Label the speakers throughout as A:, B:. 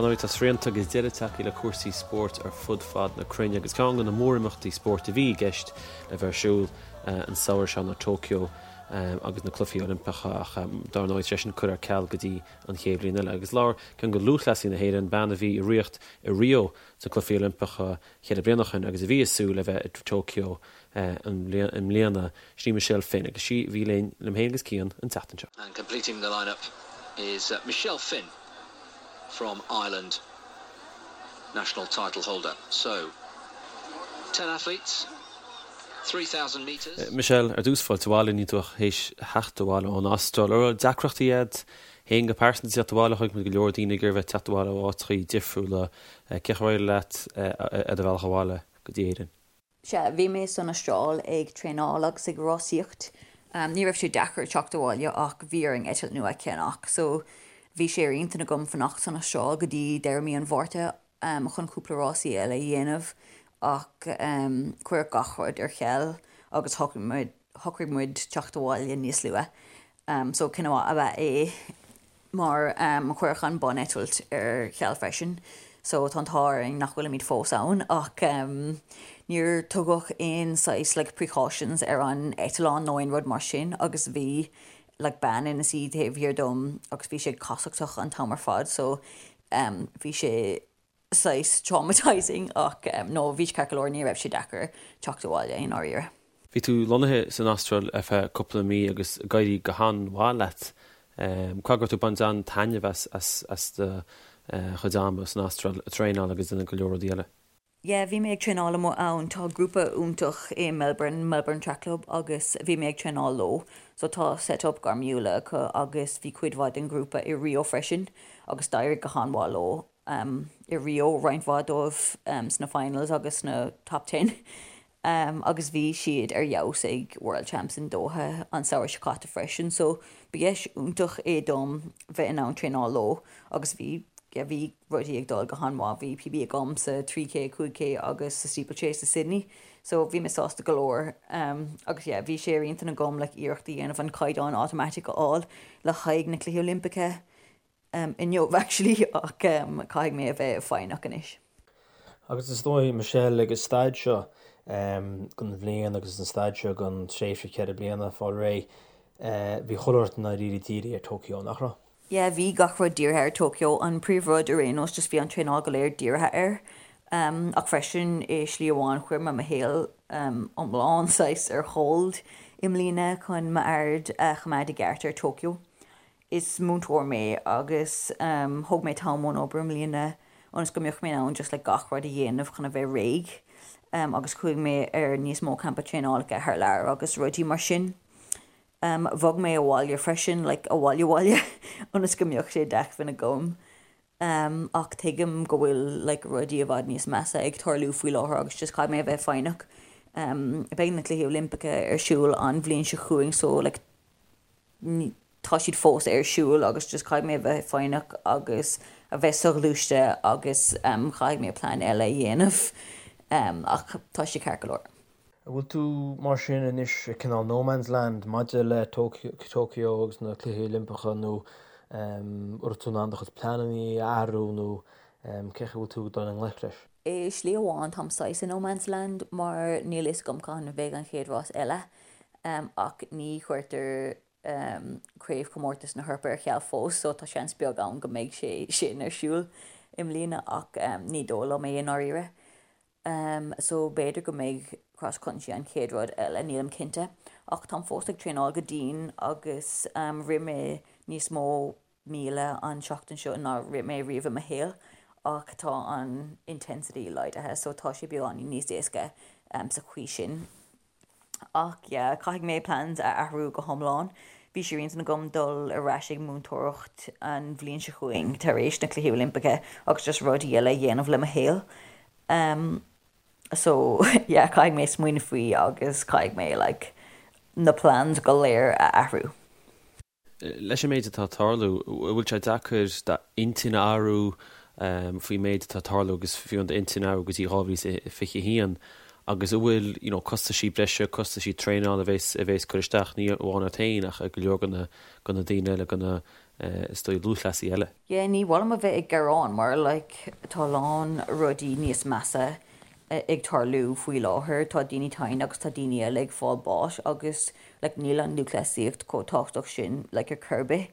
A: Dar ndóigh, tá srianta agus deireadh tagtha le cúrsaí spóirt ar fud fad na cruinne agus ceann de na mórimeachtaí spóirt a bhí i gceist le bheith ar siúl an samhradh seo ná Tokyo agus na Cluichí Oilimpeacha ach dar ndóigh tá sé sin curtha ar ceal go dtí an chéad bhliain eile. Agus labhair ceann de lúthchleasaithe na hÉireann, bean a bhí i riocht i Rio sna Cluichí Oilimpeacha cheithre bliana ó shin agus a bhí ag súil le bheith i Tokyo i mbliana, sin í Michelle Finn agus sí a bhí linn, liom féin agus Cian, an tseachtain seo.
B: And completing the line-up is Michelle Finn from Ireland, national title holder. So, 10 athletes, 3,000 metres.
A: Michelle, ar dtús fáilte abhaile, níl tú ach théis theacht abhaile ón Astráil. An raibh deacrachtaí agat féin go pearsanta teacht abhaile? Chonaic muid go leor daoine ag iarraidh bheith teacht abhaile ó áiteachaí difriúla. Cén chaoi ar éirigh leat ar do bhealach abhaile go dtí Éirinn?
C: Sea, bhí mé san Astráil ag traenáil agus ag rásaíocht. Ní raibh sé deacair teacht abhaile ach bhí orainn eitilt nua a cheannach so bhí sé ar intinn agam fanacht san Astráil go dtí deireadh mí an Mhárta chun cúpla rásaí eile a dhéanamh ach cuireadh gach rud ar ceal agus shocraigh muid teacht abhaile níos luath. So cinneadh maith ab ea é. mar cuireadh an buneitilt ar ceal freisin so tá an t-ádh orainn nach bhfuilimid fós ann ach níor tugadh aon saghas like precautions ar an eitleán nó aon rud mar sin agus bhí like bean ina suí taobh thiar dom agus bhí sé ag casachtach an t-am ar fad so bhí sé saghas traumatising ach no bhí sé ceart go leor ní raibh sé deacair teacht abhaile i ndáiríre.
A: Bhí tú lonnaithe san Astráil ar feadh cúpla mí agus ag éirí go han-mhaith leat. Caithfidh go raibh tú ag baint an-taitneamh as do chuid ama san Astráil ag traenáil agus ag déanamh go leor rudaí eile.
C: Yeah bhí mé ag traenáil amuigh ann, tá grúpa iontach i Melbourne, Melbourne Track Club agus bhí mé ag traenáil leo. So tá set up gairmiúla acu agus bhí cuid mhaith den ghrúpa i Rio freisin agus d'éirigh go han-mhaith leo. i Rio, roinnt mhaith dóibh sna finals agus sna top ten agus bhí siad ar fheabhas ag World Champs in Doha an samhradh seo caite freisin so ba dheis iontach é dom bheith in ann traenáil leo agus bhí yeah bhí rudaí ag dul go han-mhaith, bhí PB agam sa 3K, 5K agus sa steeplechase i Sydney so bhí mé sásta go leor agus yeah bhí sé ar intinn agam like iarracht a dhéanamh an caighdeán automatic a fháil le haghaidh na Cluichí Oilimpeacha inniu actually ach caithfidh mé a bheith foighneach anois.
D: Agus is dóigh, Michelle, ag an staid seo den bhliain agus an staid seo den tréimhse cheithre bliana, fáil réidh, bhí chuile shórt i ndáiríre dírithe ar Tokyo, nach raibh?
C: Yeah, bhí gach rud dírithe ar Tokyo. An príomhrud ar aon nós, just bhí an traenáil go léir dírithe air. Ach freisin, i slí amháin, chuir mé mo shaol iomlán saghas ar hold i mbliana chun m'aird a choimeád i gceart ar Tokyo. Is múinteoir mé agus thóg mé t-am ón obair i mbliana ionas go mbeadh mé in ann just like gach rud a dhéanamh chun a bheith réidh agus chuaigh mé ar níos mó campa traenálacha thar lear agus rudaí mar sin. Bhog mé abhaile freisin, like abhaile abhaile ionas go mbeadh sé d'acmhainn agam. Ach tuigim go bhfuil like rudaí i bhfad níos measa ag tarlú faoi láthair agus just caithfidh mé a bheith foighneach. Beidh na Cluichí Oilimpeacha ar siúl an bhliain seo chugainn so like tá siad fós ar siúl agus just caithfidh mé a bheith foighneach agus a bheith soghluaiste agus caithfidh mé plean eile a dhéanamh ach tá sé ceart go leor.
D: An bhfuil tú mar sin anois i cineál no man's land maidir le Tokyo agus na Cluichí Oilimpeacha nó an raibh tú in ann do chuid pleananna a athrú nó cén chaoi a bhfuil tú ag dul i ngleic leis?
C: I slí amháin táim saghas i no man's land mar níl a fhios agam cathain a bheidh an chéad rás eile ach ní chuirtear Craobhchomórtas na hEorpa ar ceal fós so tá seans beag ann go mbeidh sé sin ar siúl i mbliana ach ní dóigh liom é i ndáiríre. So b'fhéidir go mbeidh Cross Country an chéad rud eile, nílim cinnte. Ach táim fós ag traenáil go dian agus rith mé níos mó míle an tseachtain seo ná rith mé riamh i mo shaol ach tá an intensity laghdaithe so tá sé beagáinín níos éasca sa chaoi sin. Ach yeah, caithfidh mé plans a athrú go hiomlán. Bhí sé ar intinn agam dul ar ais ag múinteoireacht an bhliain seo chugainn tar éis na Cluichí Oilimpeacha agus just rudaí eile a dhéanamh le mo shaol. So yeah, caithfidh mé smaoineamh faoi agus caithfidh mé like na plans go léir a athrú.
A: Leis an méid atá ag tarlú, an bhfuil sé deacair d'intinn a athrú faoin méid atá ag tarlú agus fiú an d'intinn a athrú go dtí 2021 agus an bhfuil you know costaisí breise, costaisí traenála a bhéas a bhéas cur isteach ní amháin ort féin ach ar go leor de na de na daoine eile, de na Is dóigh lúthchleasaí eile.
C: Yeah, ní mhaith liom a bheith ag gearán mar like tá a lán rudaí níos measa ag tarlú faoi láthair, tá daoine tinn agus tá daoine eile ag fáil báis agus like níl an lúthchleasaíocht chomh tábhachtach sin like ar chor ar bith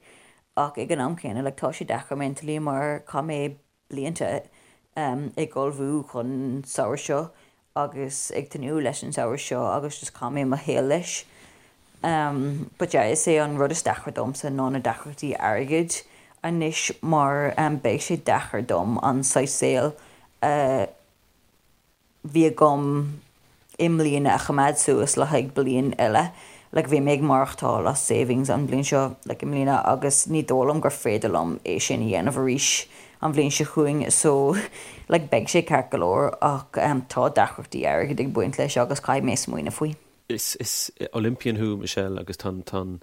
C: ach ag an am céanna like tá sé deacair mentally mar chaith mé blianta ag ullmhú chun an samhradh seo agus ag tnúth leis an samhradh seo agus just chaith mé mo shaol leis. But yeah, is é an rud is deacra domsa ná na deacrachtaí airgid anois mar beidh sé deacair dom an saghas saoil a bhí agam i mbliana a choimeád suas le haghaidh bliain eile. Like bhí mé ag maireachtáil as savings an bhliain seo, like i mbliana agus ní dóigh liom gur féidir liom é sin a dhéanamh arís an bhliain seo chugainn so like beidh sé ceart go leor ach tá deacrachtaí airgid ag baint leis agus caithfidh mé smaoineamh faoi.
A: Is is Olympian thú, Michelle, agus tá tá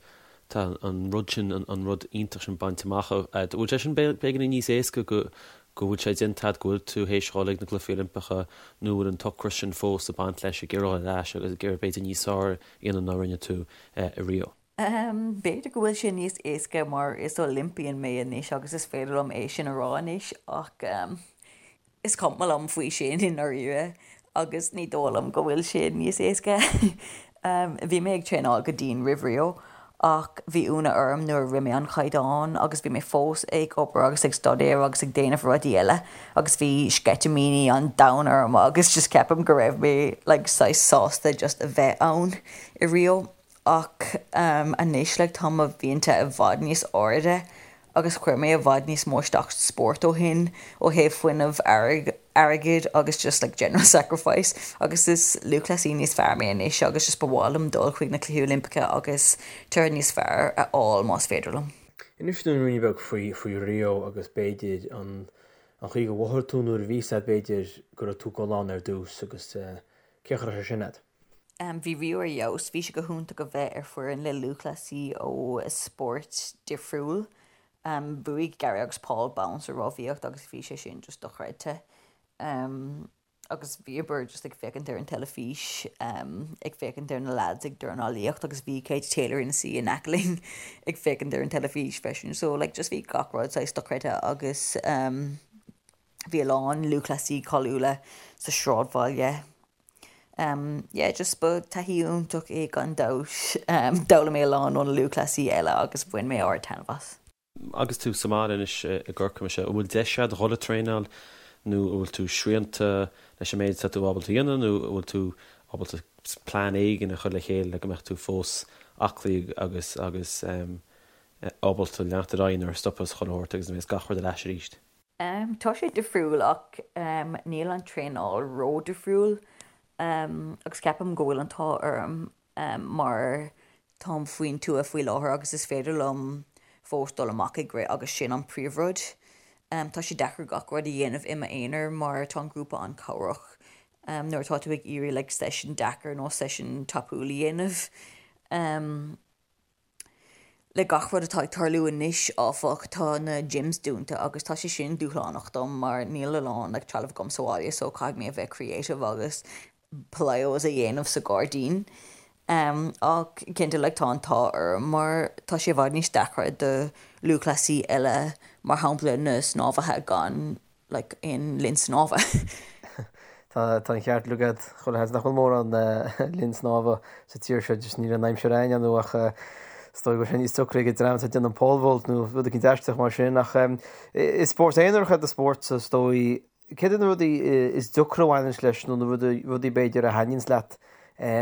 A: tá an rud sin, an rud iontach sin bainte amach agat. Bhfuil sé sin beagáinín níos éasca go go bhfuil sé déanta agat, go bhfuil tú théis dhul ag na gCluichí Oilimpeacha nó bhfuil an t-ocras sin fós ag baint leis, ag iarraidh dhul ar ais agus ag iarraidh b'fhéidir níos fearr a dhéanamh ná rinne tú i Rio?
C: B'fhéidir go bhfuil sé níos éasca mar is Olympian mé anois agus is féidir liom é sin a rá anois ach is cuma liom faoi sin i ndáiríre agus ní dóigh liom go bhfuil sé níos éasca. Bhí mé ag traenáil go dian roimh Rio ach bhí ionadh orm nuair a rith mé an caighdeán agus bhí mé fós ag obair agus ag staidéar agus ag déanamh rudaí eile agus bhí sceitimíní an domhain orm agus just ceapaim go raibh mé like saghas sásta just a bheith ann i Rio. Ach anois like tá mo mhianta i bhfad níos airde agus chuir mé i bhfad níos mó isteach sa spórt ó shin ó thaobh fuinneamh, airgid agus just like general sacrifice agus is lúthchleasaí níos fearr mé anois agus just ba mhaith liom dul chuig na Cluichí Oilimpeacha agus toradh níos fearr a fháil más féidir liom.
D: Inis dúinn ruainne beag faoi faoi Rio agus b'fhéidir an an chaoi gur mhothaigh tú nuair a bhí sé b'fhéidir go raibh tú ag dul ann ar dtús agus cén chaoi a raibh sé sin agat.
C: Bhí Rio ar fheabhas. Bhí sé go hiontach a bheith ar foireann le lúthchleasaí ó spórt difriúil. Bhuaigh Gary agus Paul bonn sa rámhaíocht agus bhí sé sin just dochreidte. Agus bhíomar just ag féachaint ar an teilifís, ag féachaint ar na lads ag dornálaíocht agus bhí Katie Taylor ina suí in aice linn ag féachaint ar an teilifís freisin. So like just bhí gach rud saghas dochreidte agus bhí a lán lúthchleasaí cáiliúla sa sráidbhaile. Yeah, just ba taithí iontach é gan dabht. D'fhoghlaim mé a lán ó na lúthchleasaí eile agus bhain mé ard-taitneamh as.
A: Agus tú sa mbaile anois i gCorcaigh, Michelle, an bhfuil deis agat dhul ag traenáil nó an bhfuil tú srianta leis an méid atá tú ábalta a dhéanamh nó an bhfuil tú ábalta plean éigin a chur le chéile le go mbeadh tú fós aclaí agus agus ábalta leanacht ar aghaidh nuair a stopfas chuile shórt agus a bheas gach rud ar ais arís?
C: Tá sé difriúil ach níl an traenáil ró-difriúil agus ceapaim go bhfuil an t-ádh orm mar táim faoin tuath faoi láthair agus is féidir liom fós dul amach ag rith agus sin an príomhrud. Tá sé deacair gach rud a dhéanamh i m'aonar mar tá an grúpa an-chabhrach nuair atá tú ag iarraidh like session deacair nó session tapúil a dhéanamh. Le gach rud atá ag tarlú anois, áfach, tá na gyms dúnta agus tá sé sin dúshlánach dom mar níl a lán like trealamh agam sa bhaile so caithfidh mé a bheith creative agus plyos a dhéanamh sa ghairdín. Ach cinnte like tá an t-ádh orm mar tá sé i bhfad níos deacra do lúthchleasaí eile mar shampla na snámhaithe gan like aon linn snámha.
D: Tá an ceart agat, chuile sheans nach bhfuil mórán linn snámha sa tír seo, just níl an aimsir againn nó ach is dóigh go bhfuil sé níos deacra ag an dream atá ag déanamh pole vault nó rud éicint aisteach mar sin ach is spórt aonarach é do spórt so is dóigh céard iad na rudaí is deacra a bhaineanns leis nó na rudaí b'fhéidir a thaitníonns leat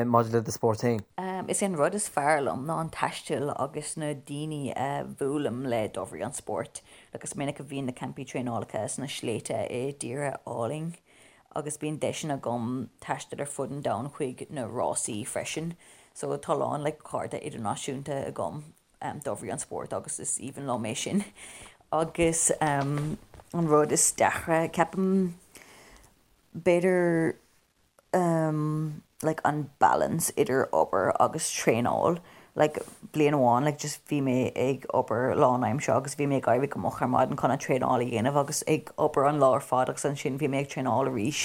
D: maidir le do spórt féin?
C: Is é an rud is fearr liom ná an taisteal agus na daoine a bhuailim le de bhrí an spóirt. Like is minic a bhíonn na campaí traenálacha sna sléibhte i dtíortha álainn agus bíonn deiseanna agam taisteal ar fud an domhain chuig na rásaí freisin. So tá a lán like cairde idirnáisiúnta agam de bhrí an spóirt agus is aoibhinn liom é sin. Agus an rud is deacra, ceapaim, b'fhéidir like an balance idir obair agus traenáil like bliain amháin like just bhí mé ag obair lánaimseartha agus bhí mé ag éirí go moch ar maidin chun an traenáil a dhéanamh agus ag obair an lá ar fad agus ansin bhí mé ag traenáil arís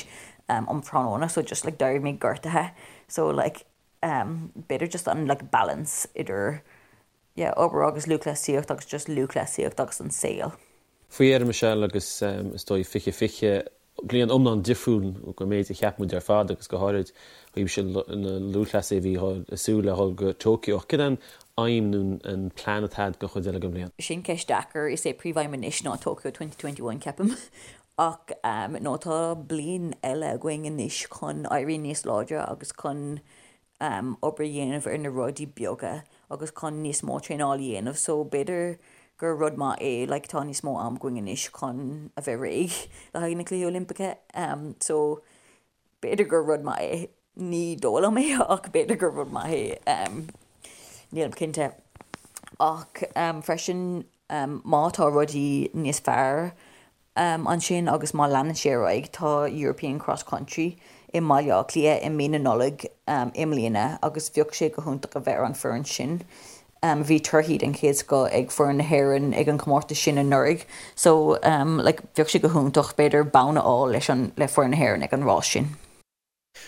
C: um tráthnóna so just like d'éirigh mé gortaithe so like b'fhéidir just an like balance idir. yeah, obair agus lúthchleasaíocht agus just lúthchleasaíocht agus an saol.
A: Faoi dheireadh Michelle agus is dóigh 2020, bliain iomlán difriúil ón méid a cheap muid ar fad agus go háirid ó thaobh na lúthchleasaithe a bhí ag súil le dhul go Tokyo. Ach cad é an aidhm nó an plean atá agat don chuid eile den bhliain?
C: Sin ceist deacair. Is é príomhaidhm anois ná Tokyo 2021 ceapaim. Ach nó tá bliain eile againn anois chun éirí níos láidre agus chun obair a dhéanamh ar na rudaí beaga agus chun níos mó traenáil a dhéanamh so b'fhéidir gur rud maith é like tá níos mó am againn anois chun a bheith réidh le haghaidh na Cluichí Oilimpeacha so b'fhéidir gur rud maith é, ní dóigh liom é ach b'fhéidir gur rud maith é nílim cinnte. Ach freisin má tá rudaí níos fearr ansin agus má leanann sé ar aghaidh, tá European Cross Country i mBaile Átha Cliath i mí na Nollag i mbliana agus bheadh sé go hiontach a bheith ar an foireann sin. Bhí torthaí den chéad scoth ag foireann na hÉireann ag an chomórtas sin anuraidh so like bheadh sé go hiontach b'fhéidir bonn a fháil leis an le foireann na hÉireann ag an rás sin.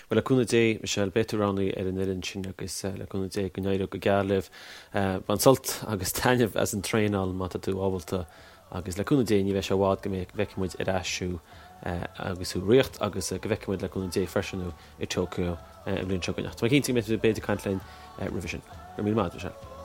A: Bhuel, le cúnamh Dé, Michelle, beidh tú roghnaithe ar an fhoireann sin agus le cúnamh Dé go n-éireoidh go geal libh. Bain sult agus taitneamh as an traenáil má tá tú ábalta agus le cúnamh Dé ní bheidh sé i bhfad go bhfeicfidh muid ar ais thú agus thú i riocht agus go bhfeicfidh muid le cúnamh Dé freisin thú i Tokyo an bhliain seo chugainn. Ach tá mé cinnte go mbeidh tú b'fhéidir ag caint linn roimhe sin. Go raibh míle maith agat, Michelle.